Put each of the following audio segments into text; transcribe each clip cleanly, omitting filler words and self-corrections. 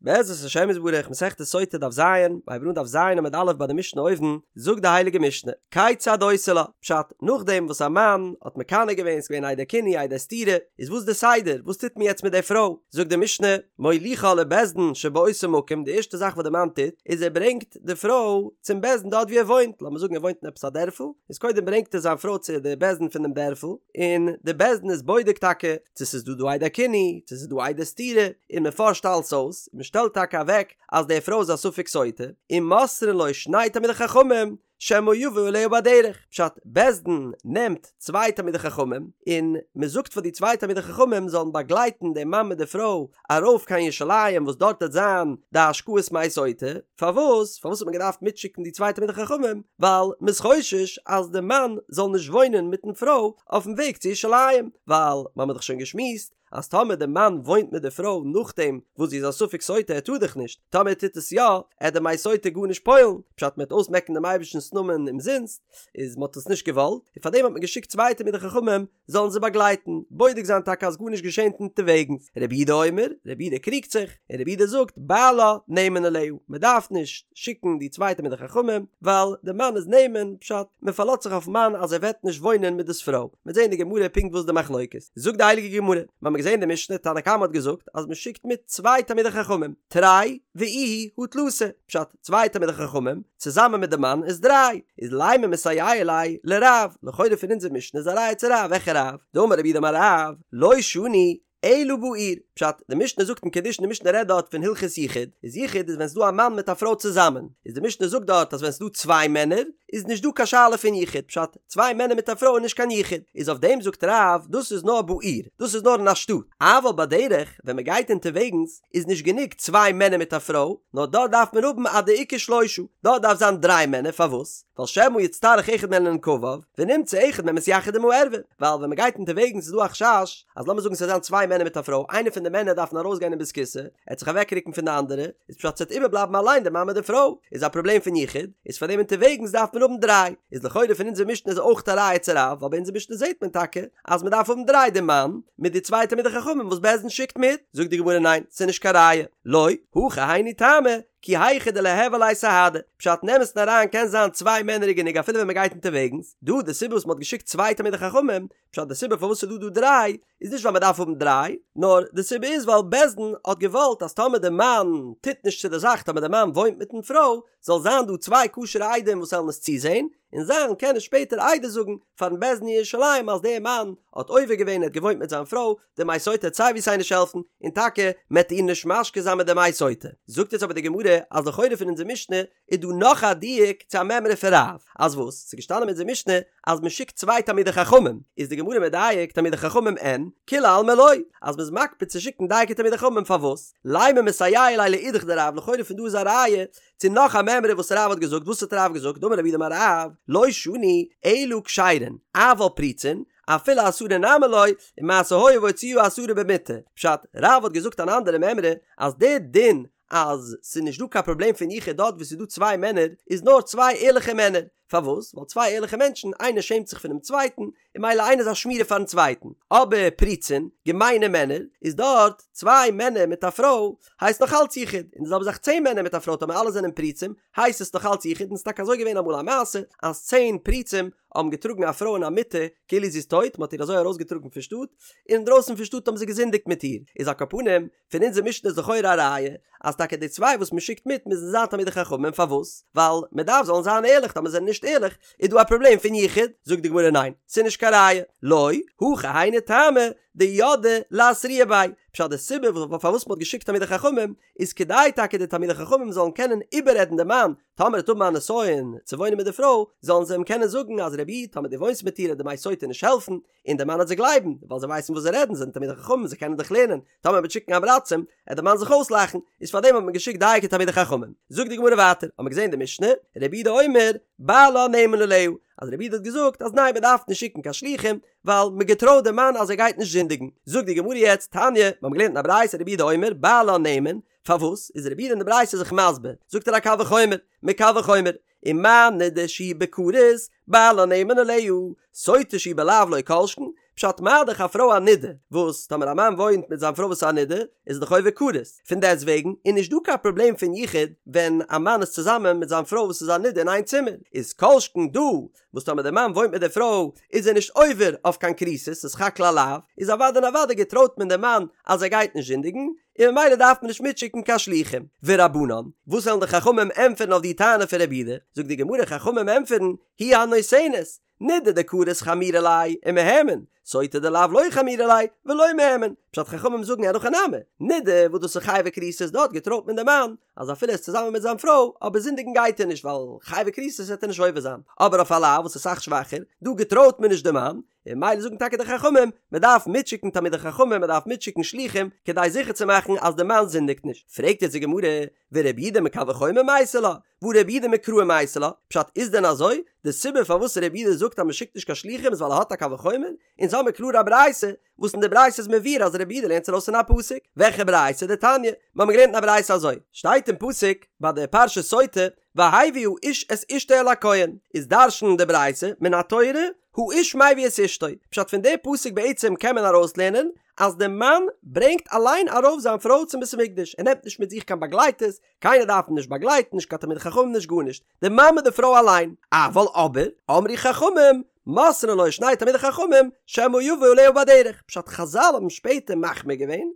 בעזרת השם יתברך, מסכת סוטה דף ז, מ'הייבט אן דף ז עמוד א' ביי די משנה אויבן, זאגט די הייליגע משנה, כיצד עושה לה, פשט, נאכדעם וואס א מאן האט מקנא געווען, ס'געווען עדי קינוי עדי סתירה, איז וואס די סדר, וואס טוט מען יעצט מיט די פרוי, זאגט די משנה, מוליכה לבית דין שבאותו מקום, די ערשטע זאך וואס די מאן טוט, איז ער ברענגט די פרוי צום בית דין דארט ווי ער וואוינט, לאמיר זאגן ער וואוינט אין עפעס א דערפל, איז קודם ברענגט ער זיין פרוי צו די בית דין פון דעם דערפל, און די בית דין איז בודק טאקע צו ס'איז דא דא עדי קינוי, צו ס'איז דא עדי סתירה, און מען פארשט אלס אויס, און מען שטעלט טאקע אוועק אז די פרוי איז א ספק סוטה, און מוסרין לו שני תלמידי חכמים שמא יבא עליה בדרך, פשט, בית דין נעמט צוויי תלמידי חכמים, און מען זאגט פאר די צוויי תלמידי חכמים זאלן באגלייטן דעם מאן מיט די פרוי ארויף קיין ירושלים וואס דארט וועט זיין די השקאת מי סוטה, פארוואס? פארוואס האט מען געדארפט מיטשיקן די צוויי תלמידי חכמים? ווייל מען איז חושש אז די מאן זאל נישט וואוינען מיטן פרוי אויפן וועג צו ירושלים, ווייל מ'האמיר דאך שוין געשמועסט אז טאמער די מאן וואוינט מיט די פרוי נאכדעם וואס זי איז א ספק סוטה ער טאר דאך נישט, טאמער ער טוט עס יא, עט די מי סוטה גארנישט פועל'ן, פשט מ'עט אויסמעקן דעם אייבערשטנ'ס נאמען אומזינסט, איז מ'האט עס נישט געוואלט, און פארדעם האט מען געשיקט צוויי תלמידי חכמים זאלן זיי באגלייטן, בודק זיין טאקע אז גארנישט געשענט אונטערוועגנס. רבי יהודה אומר, רבי יהודה קריגט זיך, און רבי יהודה זאגט, בעלה נאמן עליה, מען דארף נישט שיקן די צוויי תלמידי חכמים, ווייל די מאן איז נאמן, פשט, מען פארלאזט זיך אויפן מאן אז ער וועט נישט וואוינען מיט דאס פרוי. מ'וועט זען אין די גמרא פונקט וואס די מחלוקת. זאגט די הייליגע גמרא, מיר האבן געזען די משנה, תנא קמא האט געזאגט אז מען שיקט מיט צוויי תלמידי חכמים, תרי ואיהו הא תלתא, פשט, צוויי תלמידי חכמים, צוזאמען מיט די מאן איז דריי, איז לימא מסייע ליה לרב, לכאורה פון אונזער משנה איז א ראיה צו רב, וועלכע רב? דאמר רב יהודה אמר רב, לא שנו אלא בעיר, פשט, די משנה זאגט אין קידושין די משנה רעדט דארט פון הלכות יחוד, איז יחוד איז ווען ס'דא א מאן מיט א פרוי צוזאמען, איז די משנה זאגט דארט אז ווען ס'דא צוויי מענער איז נישט דא קיין שאלה פון יחוד, פשט, צוויי מענער מיט א פרוי איז נישט קיין יחוד, איז אויף דעם זאגט רב דאס איז נאר בעיר, דאס איז נאר אין א שטאט, אבל בדרך ווען מ'גייט אונטערוועגנס איז נישט גענוג צוויי מענער מיט א פרוי, נאר דארט דארף מען האבן עד דאיכא שלושה, דארט דארף זיין דריי מענער, פארוואס? ווייל שמא יצטרך אחד מהן לנקביו, ונמצא אחד מהן מתייחד עם הערווה, ווייל ווען מען גייט אונטערוועגנס איז דא א חשש, אז לאמיר זאגן ס'וועט זיין צוויי מענער מיט א פרוי, איינער פון די מענער דארפן ארויסגיין אין בית הכסא, ער וועט זיך אוועקרוקן פון די אנדערע, איז פשט ס'וועט איבערבלייבן אליין די מאן מיט די פרוי, איז א פראבלעם פון יחוד, איז פאר דעם אונטערוועגנס דארף מען האבן דריי, איז לכאורה פון אונזער משנה איז אויך א ראיה צו רב, ווייל ביי אונזער משנה זעט מען טאקע אז מען דארף האבן דריי די מאן מיט די צוויי תלמידי חכמים וואס בית דין שיקט מיט, זאגט די גמרא ניין ס'איז נישט קיין ראיה, לא, הכא היינו טעמא, כי היכי דליהוי עליה סהדא, פשט אין אמת'ן אריין קען זיין צוויי מענער איז גענוג אפילו ווען מען גייט אונטערוועגנס, דא די סיבה וואס מען האט געשיקט צוויי תלמידי חכמים, פשט די סיבה פארוואס ס'איז דא דא דריי איז נישט ווייל מען דארף האבן דריי, נאר די סיבה איז ווייל בית דין האט געוואלט אז טאמער די מאן טוט נישט צו די זאך טאמער די מאן וואוינט מיטן פרוי זאל זיין דא צוויי כשר'ע עדים וואס וועלן עס צוזעהן, און זיי וועלן קענען שפעטער עדות זאגן פארן בית דין אין ירושלים אז דער מאן האט עובר געווען ער האט געוואוינט מיט זיין פרוי, די מי סוטה וועט סיי ווי סיי נישט העלפן, און טאקע מען וועט איר נישט משקה זיין מיט די מי סוטה. זאגט יעצט אבער די גמרא אז לכאורה פון אונזער משנה איז דא נאך א דיוק צו א מימרא פון רב, אז וואס? ס'איז געשטאנען אין אונזער משנה אז מען שיקט צוויי תלמידי חכמים, איז די גמרא מדייק תלמידי חכמים אין, כולי עלמא לא, אז מען איז מקפיד צו שיקן דייקא תלמידי חכמים פארוואס? לימא מסייע ליה לאידך דרב לכאורה פון דא איז א ראיה צו נאך א מימרא וואס רב האט געזאגט, וואס האט רב געזאגט? דאמר רב יהודה אמר רב, לא שנו אלא כשרין, אבל פרוצין, אפילו עשרה נמי לא, ומעשה היה והוציאוה עשרה במטה. פשט, רב האט געזאגט אן אנדערע מימרא, אז דער דין אז ס'איז נישט דא קיין פראבלעם פון יחוד דארט וואו ס'איז דא צוויי מענער, איז נאר צוויי ערליכע מענער. פארוואס? ווייל צוויי ערליכע מענטשן, איינער שעמט זיך פונעם צווייטן, און ממילא איינער איז א שמירה פארן צווייטן. אבער פרוצין, געמיינע מענער, איז דארט צוויי מענער מיט א פרוי, הייסט נאך אלץ יחוד, און די זעלבע זאך צען מענער מיט א פרוי טאמער אלע זענען פרוצים, הייסט עס נאך אלץ יחוד, און ס'איז טאקע אזוי געווען אמאל א מעשה, אז צען פרוצים האבן געטראגן א פרוי אין א מיטה כאילו זי איז טויט, מ'האט איר אזוי ארויסגעטראגן פון שטאט, און אינדרויסן פון שטאט האבן זיי געזינדיגט מיט איר, איז על כל פנים, פון אונזער משנה איז לכאורה א ראיה אז טאקע די צוויי וואס מען שיקט מיט מוזן זיין תלמידי חכמים, פארוואס? ווייל מען דארף זאלן זיין ערליך, טאמער זיי זענען נישט ערליך איז דא א פראבלעם פון יחוד, זאגט די גמרא ניין, ס'איז נישט קיין ראיה, לא, הכא היינו טעמא דידעי לאתרויי ביה, פשט די סיבה פארוואס מען האט געשיקט תלמידי חכמים איז כדי טאקע די תלמידי חכמים זאלן קענען איבעררעדן די מאן טאמער ער וועט האבן א נסיון צו וואוינען מיט די פרוי, זאלן זיי אים קענען זאגן אז רבי איד טאמער דו וואוינסט מיט איר וועט די מי סוטה נישט העלפן, און דער מאן וועט זיי גלייבן, ווייל זיי ווייסן וואס זיי רעדן, זיי זענען תלמידי חכמים, זיי קענען דאך לערנען, טאמער מ'וועט שיקן עם הארצים, וועט דער מאן זיך אויסלאכן, איז פארדעם האט מען געשיקט דייקא תלמידי חכמים. זאגט די גמרא ווייטער, האט מען געזען די משנה, רבי יהודה אומר, בעלה נאמן עליה, אז רבי יהודה האט געזאגט אז ניין מען דארף נישט שיקן קיין שלוחים, ווייל מען געטרויט דעם מאן אז ער גייט נישט זינדיגן. זאגט די גמרא יעצט, תניא, מיר האבן געלערנט אין א ברייתא רבי יהודה אומר, בעלה נאמן, פארוואס איז רבי יהודה אין די ברייתא זיך מסביר, זאגט ער א קל וחומר, מקל וחומר, ומה נדה שהיא בכרת, בעלה נאמן עליה, סוטה שהיא בלאו לא כל שכן, פשט מה דאך א פרוי א נידה, וואס טאמער א מאן וואוינט מיט זיין פרוי וואס איז א נידה, איז ער דאך עובר כרת, פון דעסט וועגן איז נישט דא קיין פראבלעם פון יחוד ווען א מאן איז צוזאמען מיט זיין פרוי וואס איז א נידה אין איין צימער, איז כל שכן דא וואס טאמער דער מאן וואוינט מיט דער פרוי איז ער נישט עובר אויף קיין כריתות, ס'איז סך הכל א לאו, איז אוודאי און אוודאי געטרויט מען דעם מאן אז ער גייט נישט זינדיגן, און ממילא דארף מען נישט מיטשיקן קיין שלוחים. ורבנן, וואס וועלן די חכמים ענטפערן אויף די טענה פון רבי יהודה? זאגט די גמרא, חכמים ענטפערן, היא הנותנת, נידה דכרת חמירא ליה ומהימן, סוטה דלאו לא חמירא ליה ולא מהימן, פשט חכמים זאגן אין הכי נמי, נידה וואס דאס איז חייבי כריתות דארט געטרויט מען דעם מאן אז אפילו ער איז צוזאמען מיט זיין פרוי אבער זינדיגן גייט ער נישט ווייל חייבי כריתות וועט ער נישט עובר זיין, אבער אויף א לאו וואס איז אסאך שוואכער, דא געטרויט מען נישט דעם מאן, און ממילא זאגן טאקע די חכמים, מען דארף מיטשיקן תלמידי חכמים, מען דארף מיטשיקן שלוחים, כדי זיכער צו מאכן אז די מאן זינדיגט נישט. פרעגט יעצט די גמרא, ורבי יהודה מקל וחומר מייתי לה, והא רבי יהודה מקרא מייתי לה, פשט איז דען אזוי? די סיבה פארוואס רבי יהודה זאגט אז מען שיקט נישט קיין שלוחים איז ווייל ער האט א קל וחומר? אונז האמיר קלאר א ברייתא, וואס אין די ברייתא איז מבואר אז רבי יהודה לערנט עס ארויס פון א פסוק. וועלכע ברייתא? דתניא, מיר האבן געלערנט אין א ברייתא אזוי, שטייט אין פסוק ביי די פרשת סוטה, והביא האיש את אשתו אל הכהן, איז דרש'נט די ברייתא, מן התורה, האיש מביא את אשתו, פשט פון די פסוק בעצם קען מען ארויסלערנען אז די מאן ברענגט אליין ארויף זיין פרוי צום בית המקדש, ער נעמט נישט מיט זיך קיין באגלייטערס, קיינער דארף אים נישט באגלייטן, נישט קיין תלמידי חכמים נישט גארנישט, די מאן מיט די פרוי אליין, אבל אבער, אמרו חכמים, מוסרין לו שני תלמידי חכמים, שמא יבוא עליה בדרך, פשט חזל האבן שפעטער מחמיר געווען,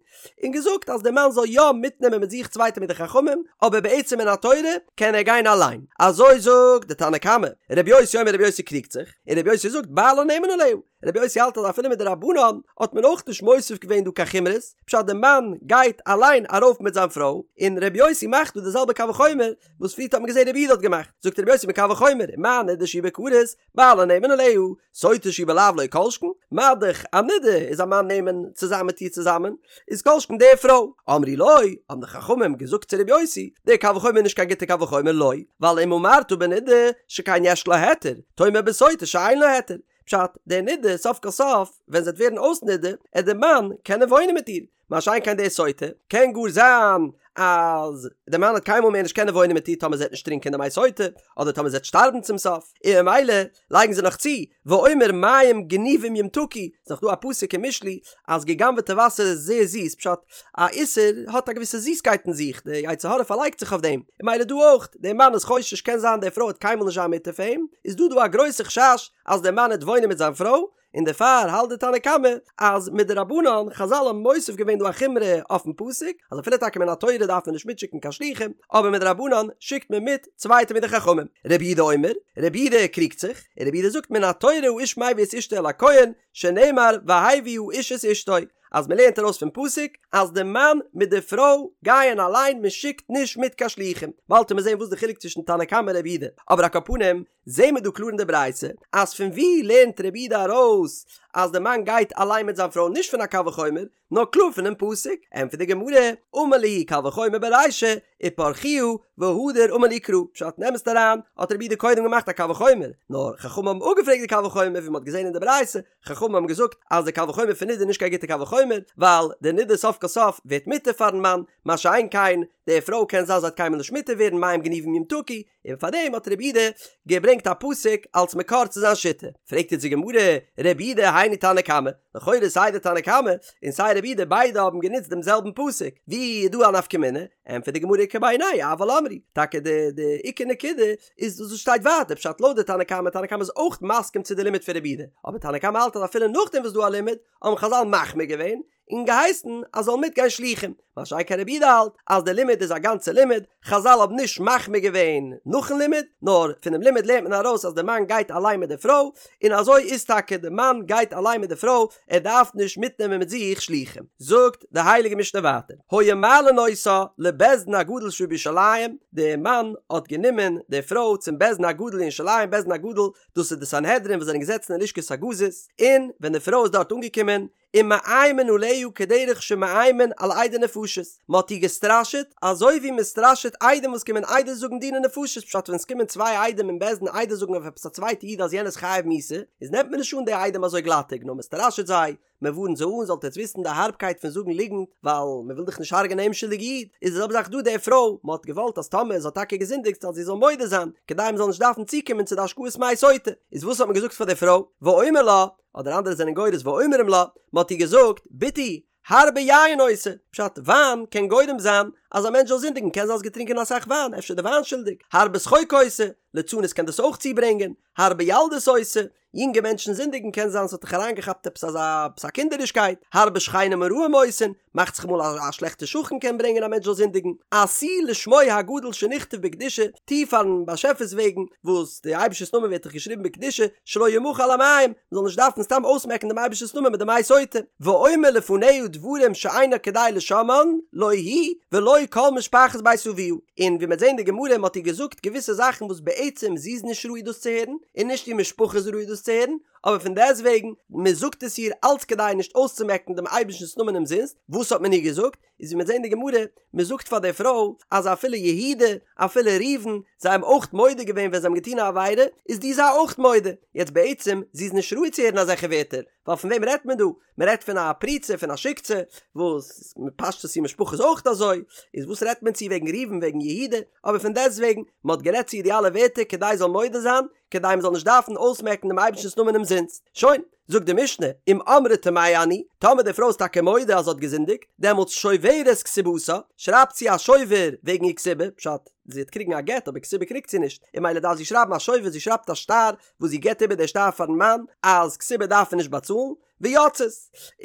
און געזאגט אז די מאן זאל יא מיטנעמען מיט זיך צוויי תלמידי חכמים, אבער בעצם מן התורה קען ער גיין אליין, אזוי זאגט די תנא קמא, רבי יוסי אומר רבי יוסי קריגט זיך, און רבי יוסי זאגט בעלה נאמן עליה, רבי יוסי האלט אז אפילו מדרבנן האט מען אויך נישט מוסיף געווען דא קיין חומרות, פשט די מאן גייט אליין ארויף מיט זיין פרוי, און רבי יוסי מאכט דא די זעלבע קל וחומר וואס פריערט האט מען געזען רבי יהודה האט געמאכט, זאגט רבי יוסי מקל וחומר, מה נדה שהיא בכרת, בעלה נאמן עליה, סוטה שהיא בלאו לא כל שכן, מה דאך א נדה איז א מאן נאמן צו זיין מיט איר צוזאמען, איז כל שכן די פרוי. אמרו לו, האבן די חכמים געזאגט צו רבי יוסי, דער קל וחומר איז נישט קיין גוטע קל וחומר לא, ווייל אם אמרת בנדה שכן יש לה היתר, תאמר בסוטה שאין לה היתר, פשט, די נדה, סוף כל סוף, ווען זי וועט ווערן אויס נדה, עט די מאן קענען וואוינען מיט איר, מה שאין כן די סוטה, קען גאר זיין אז די מאן וועט קיינמאל מער נישט קענען וואוינען מיט איר טאמער זי וועט נישט טרינקען די מי סוטה, אדער טאמער זי וועט שטארבן צום סוף, און ממילא לייגן זיי נאך צו, ואומר מים גנובים ימתקו, ס'איז נאך דא א פסוק אין משלי אז גע'גנב'עטע וואסער איז זייער זיס, פשט, א איסור האט א געוויסע זיסקייט אין זיך, די יצר הרע פארלייגט זיך אויף דעם, און ממילא דא אויך, דער מאן איז חושש קען זיין די פרוי וועט קיינמאל נישט זיין מותר פאר אים, איז דא דא א גרויסע חשש אז דער מאן וועט וואוינען מיט זיין פרוי, און דערפאר האלט די תנא קמא אז מדרבנן חזל האבן מוסיף געווען דא א חומרא אויפן פסוק אז אפילו טאקע מן התורה דארף מען נישט מיטשיקן קיין שלוחים אבער מדרבנן שיקט מען מיט צוויי תלמידי חכמים. רבי יהודה אומר, רבי יהודה קריגט זיך, און רבי יהודה זאגט מן התורה האיש מביא את אשתו אל הכהן שנאמר והביא האיש את אשתו אז מען לערנט ארויס פון פסוק אז די מאן מיט די פרוי גייען אליין מען שיקט נישט מיט קיין שלוחים באלד וועט מען זען וואס די חילוק צווישן תנא קמא און רבי יהודה אבער על כל פנים זעהן מיר דא קלאר אין די ברייתא אז פון ווי לערנט רבי יהודה ארויס אז די מאן גייט אליין מיט זיין פרוי נישט פון א קל וחומר נאר קלאר פונעם פסוק, ענטפערט די גמרא, אמר להו קל וחומר ברישא ופרכוה והדר אמר להו קרא, פשט אין אמת'ן אריין האט רבי יהודה קודם געמאכט א קל וחומר, נאר חכמים האבן אפגעפרעגט די קל וחומר ווי מ'האט געזעהן אין די ברייתא, חכמים האבן געזאגט אז די קל וחומר פון נידה איז נישט קיין גוטע קל וחומר, ווייל די נידה סוף כל סוף ווערט מותר פארן מאן, מה שאין כן די פרוי קען זיין זי וועט קיינמאל נישט מותר ווערן מים גנובים ימתקו, און פאר דעם האט רבי יהודה געברענגט א פסוק אלס מקור צו זיין שיטה. פרעגט יעצט די גמרא, רבי יהודה היינו תנא קמא, לכאורה סיי די תנא קמא און סיי רבי יהודה ביידע האבן גענוצט דעם זעלבן פסוק, ווי איז דא א נפקא מינה? ענטפערט די גמרא איכא בינייהו אבל אמרי, טאקע די די עיקר נקודה איז דאס וואס שטייט ווייטער, פשט לויט די תנא קמא, תנא קמא איז אויך מסכים צו די לימוד פון רבי יהודה, אבער תנא קמא האלט אז אפילו נאכדעם וואס דא א לימוד, האבן חזל מחמיר געווען, און געהייסן אז זאל מיטגיין שלוחים, מה שאין כן רבי יהודה האלט אז די לימוד איז א גאנצע לימוד, חזל האבן נישט מחמיר געווען נאכן לימוד, נאר פונעם לימוד לערנט מען ארויס אז די מאן גייט אליין מיט די פרוי, און אזוי איז טאקע די מאן גייט אליין מיט די פרוי, ער דארף נישט מיטנעמען מיט זיך שלוחים. זאגט די הייליגע משנה ווייטער, היו מעלין אותה לבית דין הגדול שבירושלים, די מאן האט גענומען די פרוי צום בית דין הגדול אין ירושלים, בית דין הגדול דאס איז די סנהדרין וואס זענען געזעצן אין לשכת הגזית, און ווען די פרוי איז דארט אנגעקומען, ומאיימין עליה כדרך שמאיימין על עדי נפשות. נפשות, מען האט איר געסטראשעט אזוי ווי מען סטראשעט עדים וואס קומען עדות זאגן דיני נפשות, פשט ווען עס קומען צוויי עדים אין בית דין עדות זאגן אויף עפעס א צווייטע איד אז יענער איז חייב מיתה, איז נעמט מען נישט אן די עדים אזוי גלאטיג נאר מען סטראשעט זיי, מען ווארנט זיי אן, זאלט עטס וויסן די הארבקייט פון זאגן ליגנט, ווייל מען וויל דאך נישט הרג'ענען א אומשולדיגע איד, איז די זעלבע זאך דא די פרוי, מען האט געוואלט אז טאמער זי האט טאקע געזינדיגט אז זי זאל מודה זיין, כדי מען זאל נישט דארפן צוקומען צו די השקאת מי סוטה, איז וואס האט מען געזאגט פאר די פרוי, ואומר לה, אדער אנדערע זענען גורס ואומרים לה, מען האט איר געזאגט, בתי, הרבה יין עושה, פשט, וויין קען גורם זיין אז א מענטש זאל זינדיגן, קען זיין האסט געטרינקען אסאך וויין, אפשר איז די וויין שולדיג, הרבה שחוק עושה, ליצנות קען דאס אויך צוברענגען, הרבה ילדות עושה, יונגע מענטשן זינדיגן קען זיין ס'האט דיך אריינגעכאפט עפעס אזא עפעס א קינדערישקייט, הרבה שכנים הרעים עושין, מאכט זיך אמאל אז א שלעכטע שכן קען ברענגען א מענטש זאל זינדיגן, עשי לשמו הגדול שנכתב בקדושה, טו פארן באשעפער'ס וועגן, וואס די אייבערשטער'ס נאמען ווערט דאך געשריבן בקדושה, שלא ימחה על המים, מ'זאל נישט דארפן סתם אויסמעקן דעם אייבערשטער'ס נאמען מיט די מי סוטה, ואומר לפניה דברים שאינה כדאי לשומען, לא היא ולא כל משפחת בית אביה, און ווי מ'וועט זען אין די גמרא מ'האט איר געזאגט געוויסע זאכן וואס בעצם זי איז נישט ראוי דאס צו הערן, און נישט איר משפחה איז ראוי דאס צו הערן, אבער פון דעסטוועגן, מ'זאגט עס איר אלץ כדי נישט אויסצומעקן דעם אייבערשטנ'ס נאמען אומזינסט, וואס האט מען איר געזאגט? איז ווי מ'וועט זען אין די גמרא, מ'זאגט פאר די פרוי אז אפילו יהודה, אפילו ראובן, זיי האבן אויך מודה געווען ווען זיי האבן געטון א עבירה, איז דו זיי אויך מודה. יעצט בעצם, זי איז נישט ראוי צו הערן אזעלכע ווערטער, ווייל פון וועם רעדט מען דא? מען רעדט פון א פרוצה, פון א שיקצע, וואס פשטות איר משפחה איז אויך אזוי, איז וואס רעדט מען צו וועגן ראובן וועגן יהודה? אבער פון דעסטוועגן, מען האט גערעדט צו איר די אלע ווערטער כדי זי זאל מודה זיין, כדי מען זאל נישט דארפן אויסמעקן דעם אייבערשטנ'ס נאמען אומזינסט. שוין. זאגט די משנה, אם אמרה טמאה אני, טאמער די פרוי איז טאקע מודה אז זי האט געזינדיגט, דעמאלטס שוברת כתובתה, שרייבט זי א שובר וועגן איר כתובה, פשט, זי וועט קריגן א גט אבער כתובה קריגט זי נישט, און ממילא דארף זי שרייבן א שובר, זי שרייבט א שטר וואס זי געבט איבער די שטר פארן מאן אז כתובה דארף ער נישט באצאלן, ויוצאת,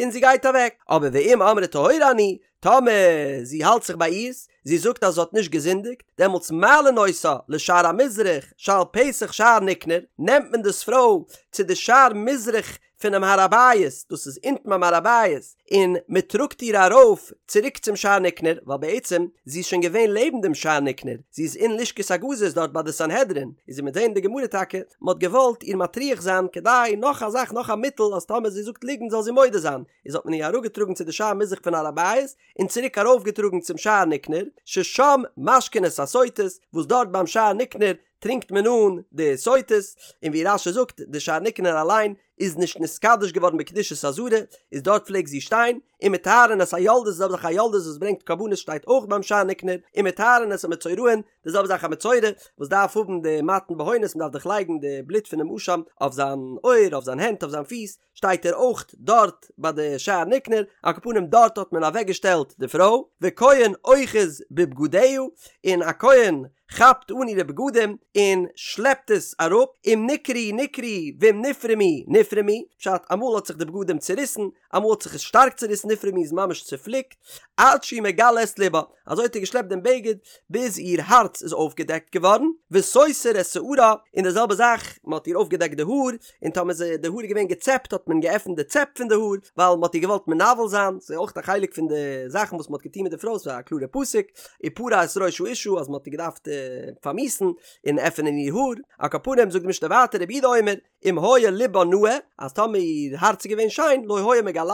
און זי גייט אוועק, אבער ואם אמרה טהורה אני, טאמער זי האלט זיך ביי אירס, זי זאגט אז זי האט נישט געזינדיגט, דעמאלטס מעלין אותה לשער המזרח שעל פתח שער ניקנור, נעמט מען דאס פרוי צו די שער מזרח פונעם הר הבית, דאס איז אונטן ביים הר הבית, און מען טראגט איר ארויף צוריק צום שער ניקנור, ווייל בעצם זי איז שוין געווען לעבן דעם שער ניקנור, זי איז אין לשכת הגזית דארט ביי די סנהדרין, איז ווי מ'וועט זען אין די גמרא טאקע, מען האט געוואלט איר מטריח זיין כדי נאך א זאך נאך א מיטל אז טאמער זי זאגט ליגנט זאל זי מודה זיין, איז האט מען איר אראפגעטראגן צו די שער מזרח פון הר הבית, און צוריק ארויפגעטראגן צום שער ניקנור, ששם משקין את הסוטות, וואס דארט ביים שער ניקנור טרינקט מען אן די סוטות, און ווי רש"י זאגט, די שער ניקנור אליין איז נישט נתקדש געווארן בקדושת עזרה, איז דארט פלעגט זי שטיין, ומטהרין את היולדות, די זעלבע זאך א יולדת וואס ברענגט קרבנות שטייט אויך ביים שער ניקנור, ומטהרין את המצורעין, די זעלבע זאך א מצורע וואס דארף האבן די מתן בהונות, מען דארף דאך לייגן די בלוט פונעם אשם אויף זיין אויער, אויף זיין הענט, אויף זיין פיס, שטייט ער אויך דארט ביי די שער ניקנור, על כל פנים דארט האט מען אוועק געשטעלט די פרוי, וכהן אוחז בבגדיה, און א כהן כאפט אן אירע בגדים און שלעפט עס אראפ, אם נקרעו נקרעו ואם נפרמו נפרמו, פשט אמאל האט זיך די בגדים צוריסן, אמאל האט זיך עס שטארק צוריסן נפרמו איז ממש צופליקט, עד שהוא מגלה את לבה, אזוי האט ער געשלעפט דעם בגד ביז איר הארץ איז אויפגעדעקט געווארן, וסותר את שערה, און די זעלבע זאך, מען האט איר אויפגעדעקט די האר, און טאמער איז די האר איז געווען געצעפט האט מען געעפנט די צעפ פון די האר, ווייל מען האט איר געוואלט מנוול זיין, ס'איז אויך א חלק פון די זאכן וואס מען האט געטון מיט די פרוי, ס'איז א קלארע פסוק, ופרע את ראש האשה אז מען האט איר געדארפט פארמיאוסן און עפענען איר האר, על כל פנים זאגט די משנה ווייטער רבי יהודה אומר, אם היה לבה נאה, אז טאמער איר הארץ איז געווען שיין, לא היה מגלהו,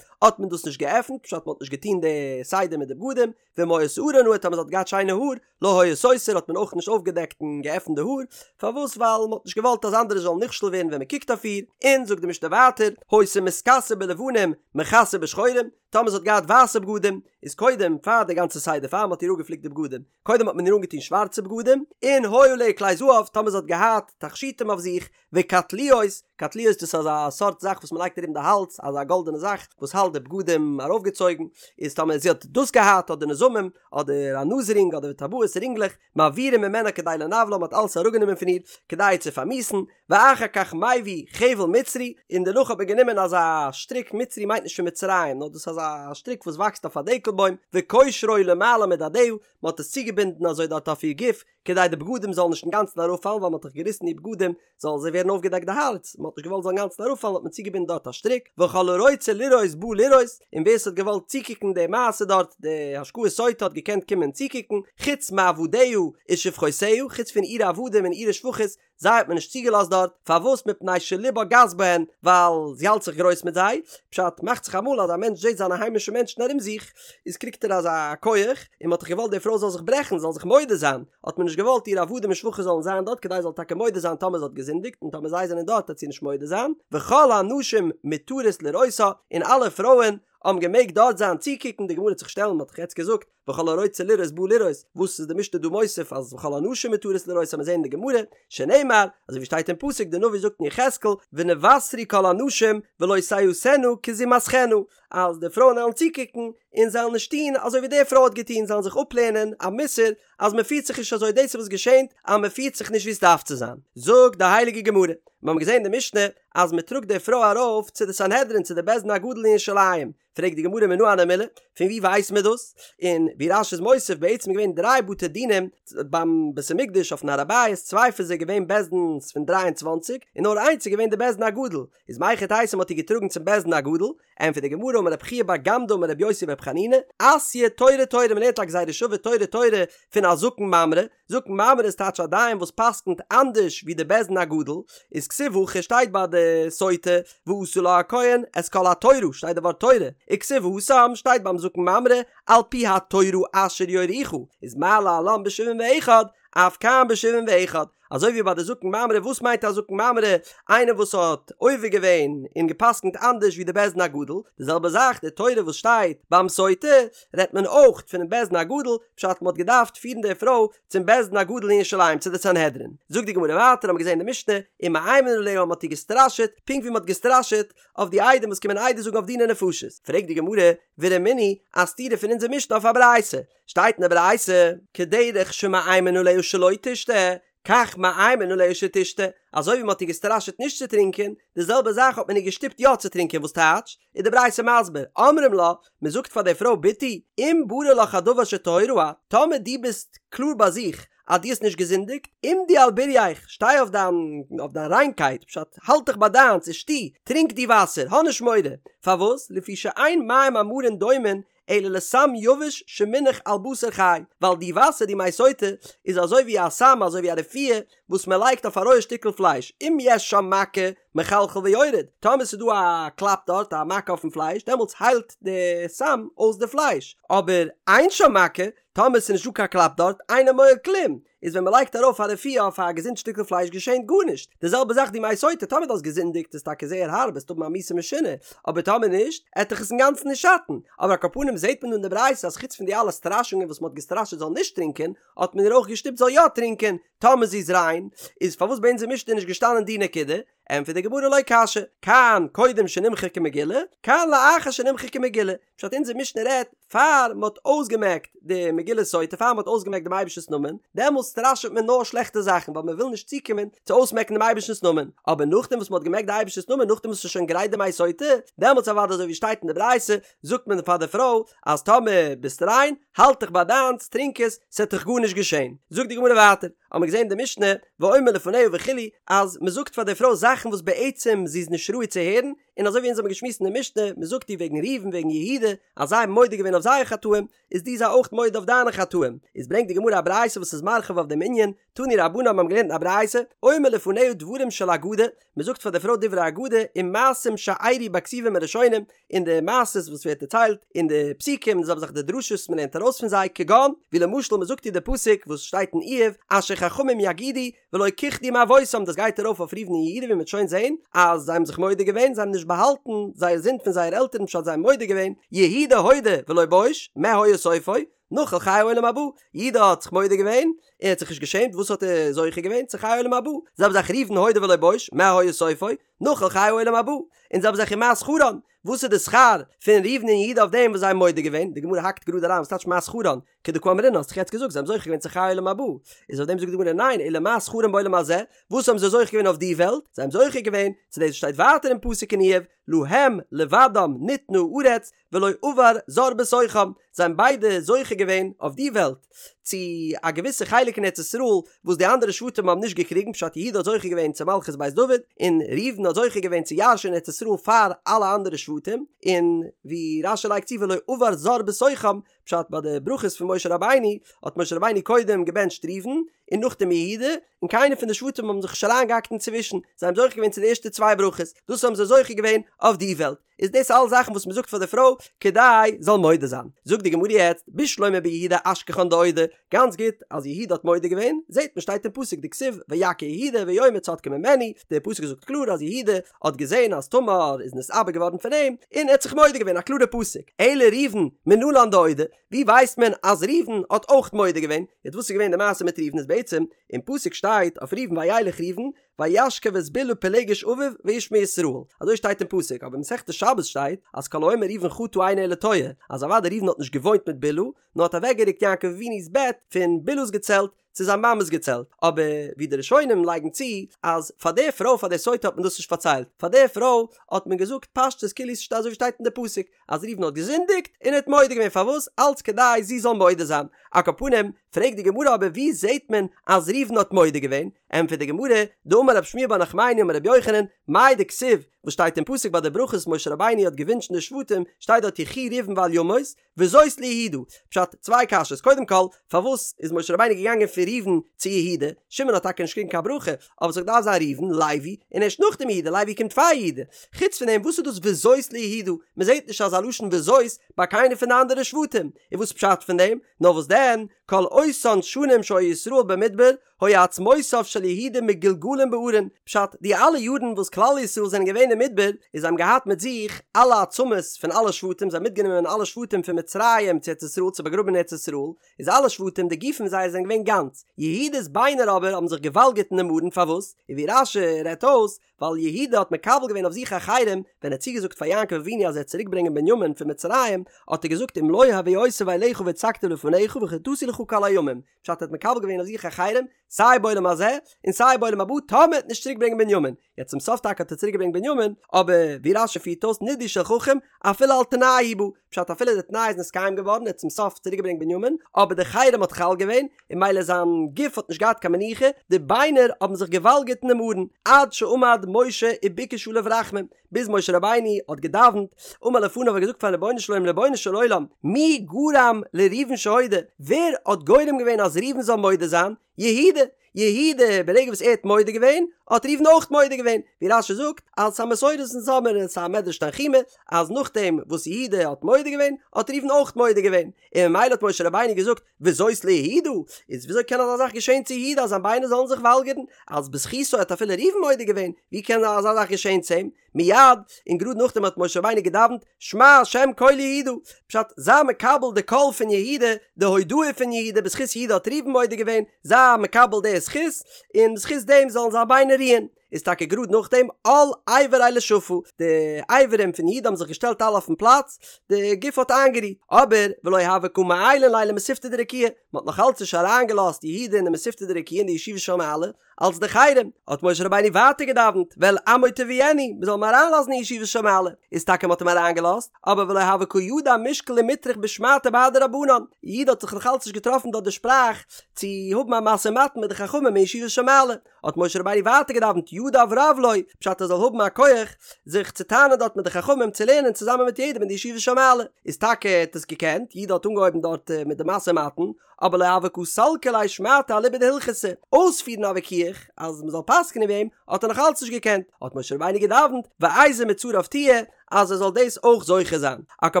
האט מען דאס נישט געעפנט, פשט מען האט נישט געטון די סדר מיט די בגדים, ואם היה שערה נאה, טאמער זי האט געהאט שיינע האר, לא היה סותר, האט מען אויך נישט אויפגעדעקט און געעפנט די האר, פארוואס ווייל מען האט נישט געוואלט אז אנדערע זאלן נכשל ווערן ווען מען קוקט אויף איר, און זאגט די משנה ווייטער, היתה מתכסה בלבנים, מכסה בשחורים, טאמער זי האט געהאט ווייסע בגדים, איז קודם פאר די גאנצע סדר פאר מען האט איר אפגעפליקט די בגדים, קודם האט מען איר אנגעטון שווארצע בגדים, און היו עליה כלי זהב, טאמער זי האט געהאט תכשיטים אויף זיך, וקטליות, קטליות דאס איז אזא סארט זאך וואס מען לייגט ארום די האלז, אזא גאלדענע זאך וואס האלט די בגדים ארויפגעצויגן, איז טאמער זי האט דאס געהאט אדער נזמים, אדער א נאז רינג אדער טבעות רינגלעך, מעבירים ממנה כדי לנוולה, מען האט אלעס אראפגענומען פון איר כדי איר צו פארמיאוסן, ואחר כך מביא חבל מצרי, און דערנאך האט מען גענומען אזא שטריק, מצרי מיינט נישט פון מצרים, נאר דאס איז אזא שטריק וואס וואקסט אויף א דקל בוים, וקושרו למעלה מדדיה, מען האט עס צוגעבינדן אזוי דארט אויף איר גוף, כדי די בגדים זאלן נישט אינגאנצן אראפפאלן, ווייל מען האט דאך געריסן איר בגדים, זאל זיי ווערן אויפגעדעקט די הארץ, מען האט נישט געוואלט זאל אינגאנצן אראפפאלן האט מען צוגעבינדן דארט א שטריק, וכל הרוצה לראות בא לראות, און ווער ס'האט געוואלט צוקוקן די מעשה דארט, די השקאת סוטה האט געקענט קומען צוקוקן, חוץ מעבדיה ושפחותיה, חוץ פון אירע עבדים און אירע שפחות, זיי האט מען נישט צוגעלאזט דארט, פארוואס מפני שליבה גס בהן, ווייל זי האלט זיך גרויס מיט זיי, פשט, מאכט זיך אמאל אז א מענטש זעט זיינע היימישע מענטשן ארום זיך, איז קריגט ער אזא כח, און מען האט דאך געוואלט די פרוי זאל זיך ברעכן, זאל זיך מודה זיין, האט מען נישט געוואלט איר עבדים און שפחות זאלן זיין דארט כדי זי זאל טאקע מודה זיין טאמער זי האט געזינדיגט, און טאמער זיי זענען דארט וועט זי נישט מודה זיין, וכל הנשים מותרות לראותה, און אלע פרויען האבן געמעגט דארט זיין צוקוקן, די גמרא וועט זיך שטעלן, מען האט דאך יעצט געזאגט, וכל הרוצה לראות בא לראות, וואס איז די משנה דא מוסיף אז וכל הנשים מותרות לראות מיר זעהן אין די גמרא, שנאמר, אזוי ווי שטייט אין פסוק די נביא זאגט אין יחזקאל, ונבשרו כל הנשים ולא תעשינה כזמתכנה, אז די פרויען וועלן צוקוקן און זיי וועלן נישט טון אזוי ווי די פרוי האט געטון, זיי וועלן זיך אפלערנען א מוסר אז מען פירט זיך נישט אזוי, דאס איז וואס געשענט אז מען פירט זיך נישט ווי עס דארף צו זיין. זאגט די הייליגע גמרא, מיר האבן געזען אין די משנה אז מען טראגט די פרוי ארויף צו די סנהדרין צו די בית דין הגדול אין ירושלים, פרעגט די גמרא מנא הני מילי, פון ווי ווייסט מען דאס? און ווי רש"י איז מוסיף, בעצם איז געווען דריי בתי דינים ביים בית המקדש אויפן הר הבית, צוויי פון זיי געווען בית דין'ס פון דריי און צוואנציג, און נאר איינס איז געווען די בית דין הגדול, איז מהיכי תיתי מ'האט איר געטראגן צום בית דין הגדול? ענטפערט די גמרא אמר רב חייא בר גמדא אמר רבי יוסי ברבי חנינא, אתיא תורה תורה מ'לערנט א גזירה שווה תורה תורה פון א זקן ממרא, זקן ממרא איז טייטש א דיין וואס פסקנט אנדערש ווי די בית דין הגדול, איז כתיב הכא שטייט ביי די סוטה ועשה לה הכהן את כל התורה שטייט די ווארט תורה, וכתיב התם שטייט ביים זקן ממרא על פי התורה אשר יורוך, איז מה להלן בשבעים ואחד אף כאן בשבעים ואחד, אזוי ווי ביי די זקן ממרא וואס מיינט א זקן ממרא איינער וואס האט עובר געווען און געפסקנט אנדערש ווי די בית דין הגדול, די זעלבע זאך די תורה וואס שטייט ביים סוטה רעדט מען אויך פונעם בית דין הגדול, פשט מ'האט געדארפט פירן די פרוי צום בית דין הגדול אין ירושלים צו די סנהדרין. זאגט די גמרא ווייטער האבן מיר געזען אין די משנה, ומאיימין עליה מ'האט איר געסטראשעט, פונקט ווי מ'האט געסטראשעט אויף די עדים וואס קומען עדות זאגן אויף דיני נפשות. פרעגט די גמרא, ורמינהי, א סתירה פון אונזער משנה אויף א ברייתא, שטייט אין די ברייתא, כדרך שמאיימין עליה שלא תשתה, כך מאיימין עליה שתשתה, אזוי ווי מען האט איר געסטראשעט נישט צו טרינקען, די זעלבע זאך האט מען איר געשטופט יא צו טרינקען, וואס טייטש? איז די ברייתא מסביר, אומרים לה, מען זאגט פאר די פרוי בתי, אם ברור לך הדבר שטהורה את, טאמער דו ביסט קלאר ביי זיך אז דו האסט נישט געזינדיגט, עמדי על בורייך, שטיי אויף דיין אויף דיין ריינקייט, פשט, האלט דיך ביי דיינס, ושתי, טרינק די וואסער, האב נישט מורא, פארוואס? לפי שאין מים המרים דומין אלא לסם יבש שמונח על בשר חי, ווייל די וואסער די מי סוטה איז אזוי ווי א סם אזוי ווי א רפואה וואס מען לייגט אויף א רויע שטיקל פלייש, אם יש שם מכה מחלחל ויורד, טאמער ס'איז דא א קלאפ דארט א מכה אויפן פלייש דעמאלטס היילט די סם אויס די פלייש, אבער אין שם מכה, טאמער ס'איז נישט דא קיין קלאפ דארט, אינו מועיל כלום, איז ווען מ'לייגט ארויף א רפואה אויף א געזונט שטיקל פלייש געשענט גארנישט, די זעלבע זאך די מי סוטה, טאמער דו האסט געזינדיגט איז טאקע זייער הארב וועסט האבן א מיתה משונה, אבער טאמער נישט, עט דיך עס אינגאנצן נישט שאטן, אבער על כל פנים זעט מען דא אין די ברייתא אז חוץ פון די אלע סטראשונגען וואס מ'האט געסטראשעט זאל נישט טרינקען, האט מען איר אויך געשטופט זאל יא טרינקען, טאמער זי איז ריין, איז פארוואס ביי אונזער משנה איז נישט געשטאנען די נקודה? ענטפערט די גמרא לא קשיא, כאן קודם שנמחקה מגילה, כאן לאחר שנמחקה מגילה, פשט אונזער משנה רעדט פאר מען האט אויסגעמעקט די מגילת סוטה פאר מען האט אויסגעמעקט דעם אייבערשטנ'ס נאמען, דעמאלס סטראשעט מען נאר שלעכטע זאכן ווייל מען וויל נישט צוקומען צו אויסמעקן דעם אייבערשטנ'ס נאמען, אבער נאכדעם וואס מען האט געמעקט די אייבערשטנ'ס נאמען נאכדעם וואס ס'איז שוין גרייט די מי סוטה, דעמאלס אוודאי אזוי ווי שטייט אין די ברייתא זאגט מען פאר די פרוי אז טאמער ביסט ריין האלט דיך ביי דיינס טרינק עס ס'עט דיך גארנישט געשען, זאגט די גמרא ווייטער האבן מיר געזען אין די משנה ואומר לפניה וכו' אז מען זאגט פאר די פרוי זאכן וואס בעצם זי איז נישט ראוי צו הערן, און אזוי ווי אונז האבן געשמועסט אין די משנה, מען זאגט איר וועגן ראובן וועגן יהודה, אז זיי האבן מודה געווען אויף זייער חטאים, איז דו זיי אויך מודה אויף דיינע חטאים. איז ברענגט די גמרא א ברייתא וואס איז מרחיב אויף דעם ענין, תנו רבנן האבן געלערנט אין א ברייתא, אומר לפניה דברים של אגדה, מען זאגט פאר די פרוי דברי אגדה, ומעשים שאירעו בכתובים הראשונים, און די מעשות וואס ווערט דערציילט אין די פסוקים, און זיי האבן זיך די דרשות מען לערנט ארויס פון זיי, כגון, ווי למשל מען זאגט איר די פסוק וואס שטייט אין איוב, אשר חכמים יגידו, ולא כחדו מאבותם, דאס גייט ארויף אויף ראובן און יהודה ווי מען וועט שוין זעהן אז זיי האבן זיך מודה געווען, זיי האבן נישט באהאלטן זייער זינד פון זייער עלטערן פשט זיי האבן מודה געווען, יהודה הודה ולא בוש, מה היה סופו? נחל חיי עולם הבא, יהודה האט זיך מודה געווען, ער האט זיך נישט געשעמט, וואס האט ער זוכה געווען? צו חיי עולם הבא, זעלבע זאך ראובן הודה ולא בוש, מה היה סופו? נחל חיי עולם הבא, און זעלבע זאך ומה שכרן, וואס איז די שכר פון ראובן און יהודה אויף דעם וואס זיי האבן מודה געווען? די גמרא האקט גראד אריין, וואס טייטש מה שכרן? כדקאמרינן האסט דאך יעצט געזאגט זיי האבן זוכה געווען צו חיי עולם הבא, איז אויף דעם זאגט די גמרא ניין, אלא מה שכרן בעולם הזה, וואס האבן זיי זוכה געווען אויף די וועלט? זיי האבן זוכה געווען צו דאס וואס שטייט ווייטער אין פסוק אין איוב, להם לבדם ניתנה הארץ ולא עבר זר בתוכם, זיי האבן ביידע זוכה געווען אויף די וועלט צו א געוויסע חלק אין ארץ ישראל וואס די אנדערע שבטים האבן נישט געקריגן, פשט יהודה האט זוכה געווען צו מלכות בית דוד, און ראובן האט זוכה געווען צו ירש'ען ארץ ישראל פאר אלע אנדערע שבטים, און ווי רש"י לייגט צו ולא עבר זר בתוכם, פשט ביי די ברכות פון משה רבינו האט משה רבינו קודם געבענטשט ראובן, און נאכדעם יהודה, און קיינער פון די שבטים האבן זיך נישט אריינגעהאקט אינצווישן, זיי האבן זוכה געווען צו די ערשטע צוויי ברכות, דאס האבן זיי זוכה געווען אויף די וועלט, איז דאס אלס זאכן וואס מען זאגט פאר די פרוי כדי זאל מודה זיין. זאגט די גמרא יעצט, בשלמא ביהודה אשכחן דאודי, גאנץ גוט אז יהודה האט מודה געווען, זעט מען שטייט אין פסוק דכתיב ויכר יהודה ויאמר צדקה ממני, דער פסוק זאגט קלאר אז יהודה האט געזען אז תמר איז נתעבר געווארן פון אים, און ער האט זיך מודה געווען, א קלארע פסוק. אלא ראובן מנלן דאודי, ווי ווייסט מען אז ראובן האט אויך מודה געווען? יעצט וואס איז געווען די מעשה מיט ראובן איז בעצם, אין פסוק שטייט אויף ראובן וילך ראובן וישכב את בלהה פילגש אביו וישמע ישראל, אזוי שטייט אין פסוק, אבער אין מסכת שבת שטייט אז כל האומר ראובן חטא אינו אלא טועה, אז אוודאי ראובן האט נישט געוואוינט מיט בלהה, נאר האט אוועקגערוקט יעקב אבינו'ס בעט פון בלהה'ס געצעלט צו זיין מאמע'ס געצעלט, אבער ווי די ראשונים לייגן צו אז פאר די פרוי פאר די סוטה האט מען דאס נישט פארציילט, פאר די פרוי האט מען געזאגט פשטות כאילו ס'שטייט אזוי ווי שטייט אין די פסוק אז ראובן האט געזינדיגט און ער האט מודה געווען פארוואס אלץ כדי זי זאל מודה זיין, על כל פנים פרעגט די גמרא אבער ווי זעט מען אז ראובן האט מודה געווען, ענטפערט די גמרא, דאמר רב שמואל בר נחמני אמר רבי יוחנן, מאי דכתיב, וואס שטייט אין פסוק ביי די ברכות משה רבינו האט געווינטשן די שבטים, שטייט דארט יחי ראובן ואל ימות, וזאת ליהודה. פשט, צוויי קשיות, קודם כל, פארוואס איז משה רבינו געגאנגען פון ראובן צו יהודה? שמעון האט טאקע נישט געקריגן קיין ברכה, אבער ס'האט געדארפט זיין ראובן, לוי, און ערשט נאכדעם יהודה, לוי קומט פאר יהודה. חוץ פון דעם, וואס איז דאס וזאת ליהודה? מ'זעט נישט אזא לשון וזאת ביי קיינער פון די אנדערע שבטים. און וואס פשט פון דעם? נאר וואס דען, כל אותן שנים שהיו ישראל במדבר, היו עצמותיו של יהודה מגולגלין בארון, פשט, די אלע יארן וואס כלל ישראל זענען געווען אין מדבר, איז זיי האבן געהאט מיט זיך אלע עצמות פון אלע שבטים, זיי האבן מיטגענומען אלע שבטים פון מצרים צו ארץ ישראל צו באגראבן אין ארץ ישראל, איז אלע שבטים די גופים זייער זענען געווען גאנץ, יהודה'ס ביינער אבער האבן זיך געוואלגערט אין דעם ארון, פארוואס? און ווי רש"י רעדט אויס, ווייל יהודה האט מקבל געווען אויף זיך א חרם, ווען ער האט צוגעזאגט פאר יעקב אבינו אז ער וועט צוריק ברענגען בנימין פון מצרים, האט ער געזאגט אם לא הביאותיו אליך והצגתיו לפניך וחטאתי לך כל הימים, פשט ער האט מקבל געווען אויף זיך א חרם, סיי בעולם הזה, און סיי בעולם הבא, טאמער ער וועט נישט צוריק ברענגען בנימין. יעצט צום סוף טאקע האט ער צוריק געברענגט בנימין, אבער ווי רש"י פירט אויס נידוי של חכם, אפילו על תנאי הוא בא, פשט אפילו די תנאי איז נתקיים געווארן, ער האט צום סוף צוריק געברענגט בנימין, אבער די חרם האט חל געווען, און ממילא זיין גוף האט נישט געהאט קיין מנוחה, די ביינער האבן זיך געוואלגערט אינעם ארון, עד שעמד משה וביקש עליו רחמים, ביז משה רבינו האט געדאווענט, אמר לפניו האט געזאגט פארן רבונו של עולם, רבונו של עולם, מי גרם לראובן שהודה, ווער האט גורם געווען אז ראובן זאל מודה זיין? יהודה! יהודה, ברגע וואס ער האט מודה געווען, האט ראובן אויך מודה געווען, ווי רש"י זאגט, אז ס'איז א מסורת אונז האמיר און ס'איז א מדרש תנחומא, אז נאכדעם וואס יהודה האט מודה געווען, האט ראובן אויך מודה געווען, און ממילא האט משה רבינו געזאגט, וזאת ליהודה, איז וויאזוי קען אזא זאך געשען צו יהודה אז זיין ביינער זאלן זיך וואלגערן, אז בזכותו האט אפילו ראובן מודה געווען, ווי קען אזא זאך געשען צו אים? מיד, און גראד נאכדעם האט משה רבינו געדאווענט, שמע השם קול יהודה, פשט, זיי מקבל די קול פון יהודה, די הודאה פון יהודה, בזכות יהודה האט ראובן מודה געווען, זיי מקבל די זכות, און בזכות דעם זאלן זיין ביינער רוען. איז טאקע גראד נאכדעם על איבריה לשפא, די אברים פון יהודה האבן זיך געשטעלט אלע אויפן פלאץ, די גוף האט איינגערוהט, אבער ולא הוו קא מעיילין ליה למתיבתא דרקיעא, מען האט נאך אלץ נישט אריינגעלאזט יהודה אין די מתיבתא דרקיעא אין די ישיבה של מעלה, אלס די חרם, האט משה רבינו ווייטער געדאווענט, ואל עמו תביאנו, מען זאל אים אריינלאזן אין ישיבה של מעלה, איז טאקע מען האט אים אריינגעלאזט, אבער ולא הוה קא ידע מישקל ומטרח בשמעתא בהדי רבנן, יהודה האט זיך נאך אלץ נישט געטראפן דארט די שפראך צו האבן א משא ומתן מיט די חכמים אין ישיבה של מעלה, האט משה רבינו ווייטער געדאווענט ידיו רב לו, פשט ער זאל האבן א כח זיך צו טענה'ן דארט מיט די חכמים צו לערנען צוזאמען מיט יעדעם אין די ישיבה של מעלה, איז טאקע ער האט עס געקענט, יהודה האט אנגעהויבן דארט מיט די משא ומתן, אבער לא הוה קא סלקא ליה שמעתא אליבא דהלכתא, אויספירן א וויכוח אז מ'זאל פסק'נען ווי אים האט ער נאך אלץ נישט געקענט, האט משה רבינו געדאווענט ואיזה מצריו תהיה אז ער זאל דאס אויך זוכה זיין, על כל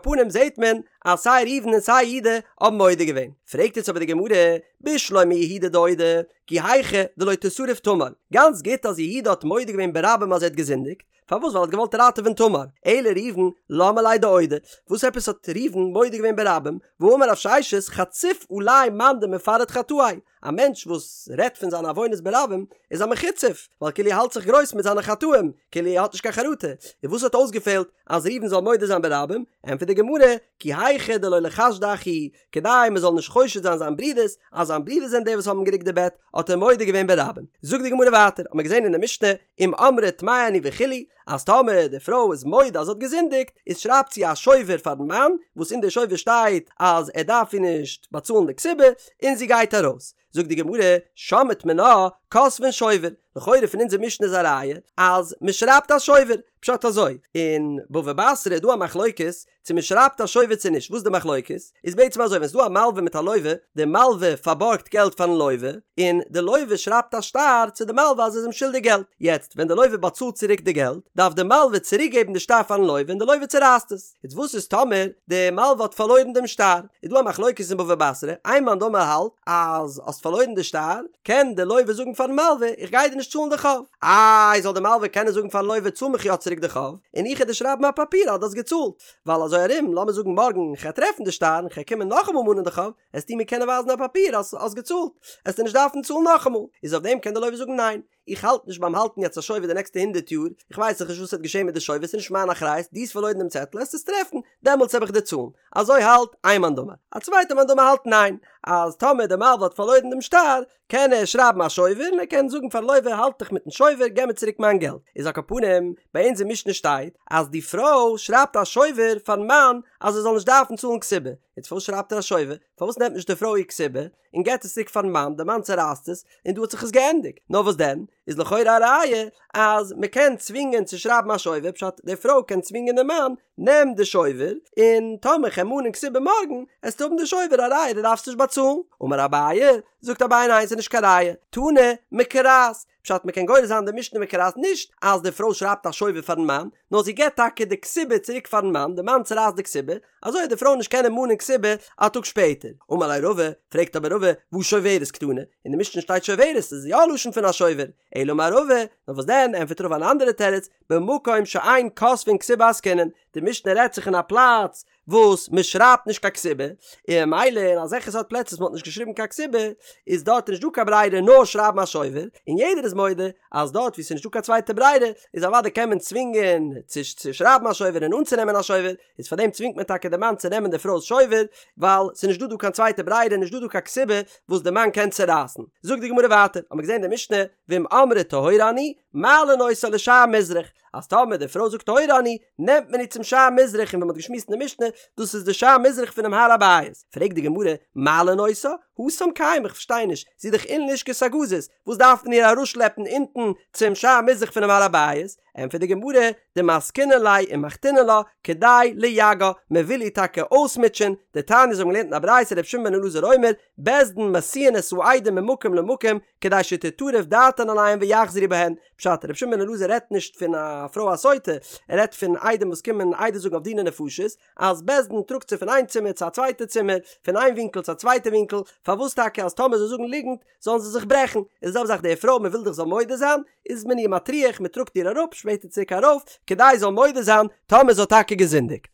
פנים זעט מען אז סיי ראובן און סיי יהודה האבן מודה געווען, פרעגט יעצט אבער די גמרא, בשלמא יהודה דאודי, כי היכי דלא תשרף תמר, גאנץ גוט אז יהודה האט מודה געווען ברבים אז ער האט געזינדיגט, פארוואס ווייל ער האט געוואלט ראטעווען תמר, אלא ראובן למה ליה דאודי, וואס עפעס האט ראובן מודה געווען ברבים, והאמר רב ששת חציף עלי מאן דמפרט חטאיה, א מענטש וואס רעדט פון זיינע עוונות ברבים איז א מחוצף, ווייל כאילו ער האלט זיך גרויס מיט זיינע חטאים, כאילו ער האט נישט קיין חרטה, און וואס האט אויסגעפעלט אז ראובן זאל מודה זיין ברבים, ענטפערט די גמרא, כי היכי דלא ליחשדו אחי, כדי מען זאל נישט חושד זיין זיין ברודערס אז זיין ברודערס זענען די וואס האבן גערוקט די בעט, האט ער מודה געווען ברבים. זאגט די גמרא ווייטער, האט מען געזען אין די משנה, אם אמרה טמאה אני וכו', אז טאמער די פרוי איז מודה אז זי האט געזינדיגט, איז שרייבט זי א שובר פארן מאן, וואס אין די שובר שטייט אז ער דארף איר נישט באצאלן די כתובה, און זי גייט ארויס. זאגט די גמרא, שמעת מינה, כותבין שובר, לכאורה פון אונזער משנה איז א ראיה אז מען שרייבט א שובר, פשט אזוי, אין בבא בתרא איז דא א מחלוקת צו מען שרייבט א שובר צו נישט, וואס איז די מחלוקת? איז בעצם אזוי, ווען ס'איז דא א מלווה מיט א לווה, די מלווה פארבארגט געלט פארן לווה, און די לווה שרייבט א שטר צו די מלווה אז ער איז אים שולדיג געלט, יעצט ווען די לווה באצאלט צוריק די געלט, דארף די מלווה צוריק געבן די שטר פארן לווה און די לווה צורייסט עס. יעצט וואס איז טאמער די מלווה האט פארלוירן דעם שטר? איז דא א מחלוקת אין בבא בתרא, איין מאן דאמר האלט אז האסט פארלוירן די שטר, קען די לווה זאגן פארן מלווה איך גיי דיר נישט צאלן די חוב. איי זאל די מלווה קענען זאגן פארן לווה צאל מיך יא צוריק די חוב, און איך וועל דיר שרייבן א פאפיר אז דו האסט געצאלט, ווייל אזוי ארום לאמיר זאגן מארגן כ'וועל טרעפן די שטר און כ'וועל קומען נאכאמאל מאנען די חוב, עסטו מיר קענען ווייזן א פאפיר אז האסט געצאלט, עסטו נישט דארפן צאלן נאכאמאל, איז אויף דעם קען די לווה זאגן ניין, איך האלט נישט ביים האלטן יעצט א שובר די נעקסטע הונדערט יאר, איך ווייס דאך נישט וואס וועט געשען מיט די שובר, ס'איז נישט מיין אחריות, דו האסט פארלוירן דעם צעטל, עסט עס טרעפן, דעמאלטס וועל איך דיר צאלן. אזוי האלט איין מאן דאמר. א צווייטער מאן דאמר האלט ניין, אז טאמער די מלווה האט פארלוירן דעם שטר, קען ער שרייבן א שובר און ער קען זאגן פארן לווה האלט דיך מיטן שובר, געב מיר צוריק מיין געלט. איז על כל פנים, ביי אונז אין משנה שטייט אז די פרוי שרייבט א שובר פארן מאן אז ער זאל נישט דארפן צאלן כתובה. יעצט פארוואס שרייבט ער א שובר? פארוואס נעמט נישט די פרוי איר כתובה און געבט עס צוריק פארן מאן, די מאן צערייסט עס, און דא האט זיך עס געענדיגט. נאר וואס דען, איז לכאורה א ראיה אז מען קען צווינגען צו שרייבן א שובר, פשט די פרוי קען צווינגען די מאן, נעם די שובר, און טאמער כ'וועל מאנען כתובה מארגן, עסטו האבן די שובר א ראיה דו דארפסט נישט באצאלן. אמר אביי, זאגט אביי ניין ס'איז נישט קיין ראיה, תנא מקרעת, פשט מ'קען גורס זיין די משנה מקרעת נישט אז די פרוי שרייבט א שובר פארן מאן, נאר זי געבט טאקע די כתובה צוריק פארן מאן, די מאן צורייסט די כתובה, אזוי וועט די פרוי נישט קענען מאנען כתובה א טאג שפעטער. אמר ליה רבא, פרעגט אבער רבא, והא שוברת קתני, אין די משנה שטייט שוברת, איז יא א לשון פון א שובר, אלא אמר רבא, נאר וואס דען, ענטפערט רבא אן אנדערע תירוץ, במקום שאין כותבין כתובה עסקינן, די משנה רעדט זיך אין א פלאץ וואס מען שרייבט נישט קיין כתובה, און ממילא אין אזעלכע סארט פלעצער וואס מען האט נישט געשריבן קיין כתובה, איז דארט נישט דא קיין ברירה נאר שרייבן א שובר, און יעדער איז מודה אז דארט וואו ס'איז נישט דא קיין צווייטע ברירה, איז אוודאי קען מען צווינגען צו צו שרייבן א שובר און אנצונעמען א שובר, איז פארדעם צווינגט מען טאקע די מאן צו נעמען די פרוי'ס שובר, ווייל ס'איז נישט דא דא קיין צווייטע ברירה, נישט דא דא קיין כתובה וואס די מאן קען צורייסן. זאגט די גמרא ווייטער, האמיר געזען די משנה, ואם אמרה טהורה אני, מעלין אותה לשער מזרח, אז טאמער די פרוי זאגט טהורה אני, נעמט מען איר צום שער מזרח און ווי מ'האט געשמועסט אין די משנה, דאס איז די שער מזרח פונעם הר הבית. פרעגט די גמרא, מעלין אותה? התם קיימא, איך פארשטיי נישט, זי איז דאך אין לשכת הגזית, וואס דארף מען איר אראפשלעפן אונטן צום שער מזרח פונעם הר הבית? ענטפערט די גמרא, דמסקינן ליה ומחתינן לה, כדי לייגעה, מען וויל איר טאקע אויסמוטשען, דתניא אזוי האבן געלערנט אין א ברייתא רבי שמעון בן אלעזר אומר, בית דין מסיעין את העדים ממקום למקום, כדי שתטרף דעתן עליהם ויחזרו בהן, פשט, רבי שמעון בן אלעזר רעדט נישט פון א פרוי א סוטה, ער רעדט פון עדים וואס קומען עדות זאגן אויף דיני נפשות, אז בית דין טראגט זיי פון איין צימער צו א צווייטע צימער, פון איין ווינקל צו א צווייטע ווינקל, פארוואס טאקע אז טאמער זיי זאגן ליגנט זאלן זיי זיך ברעכן, איז די זעלבע זאך די פרוי מען וויל דאך זאל מודה זיין, איז מען איר מטריח מען טראגט איר אראפ שפעטער צוריק ארויף, כדי זי זאל מודה זיין טאמער זי האט טאקע געזינדיגט.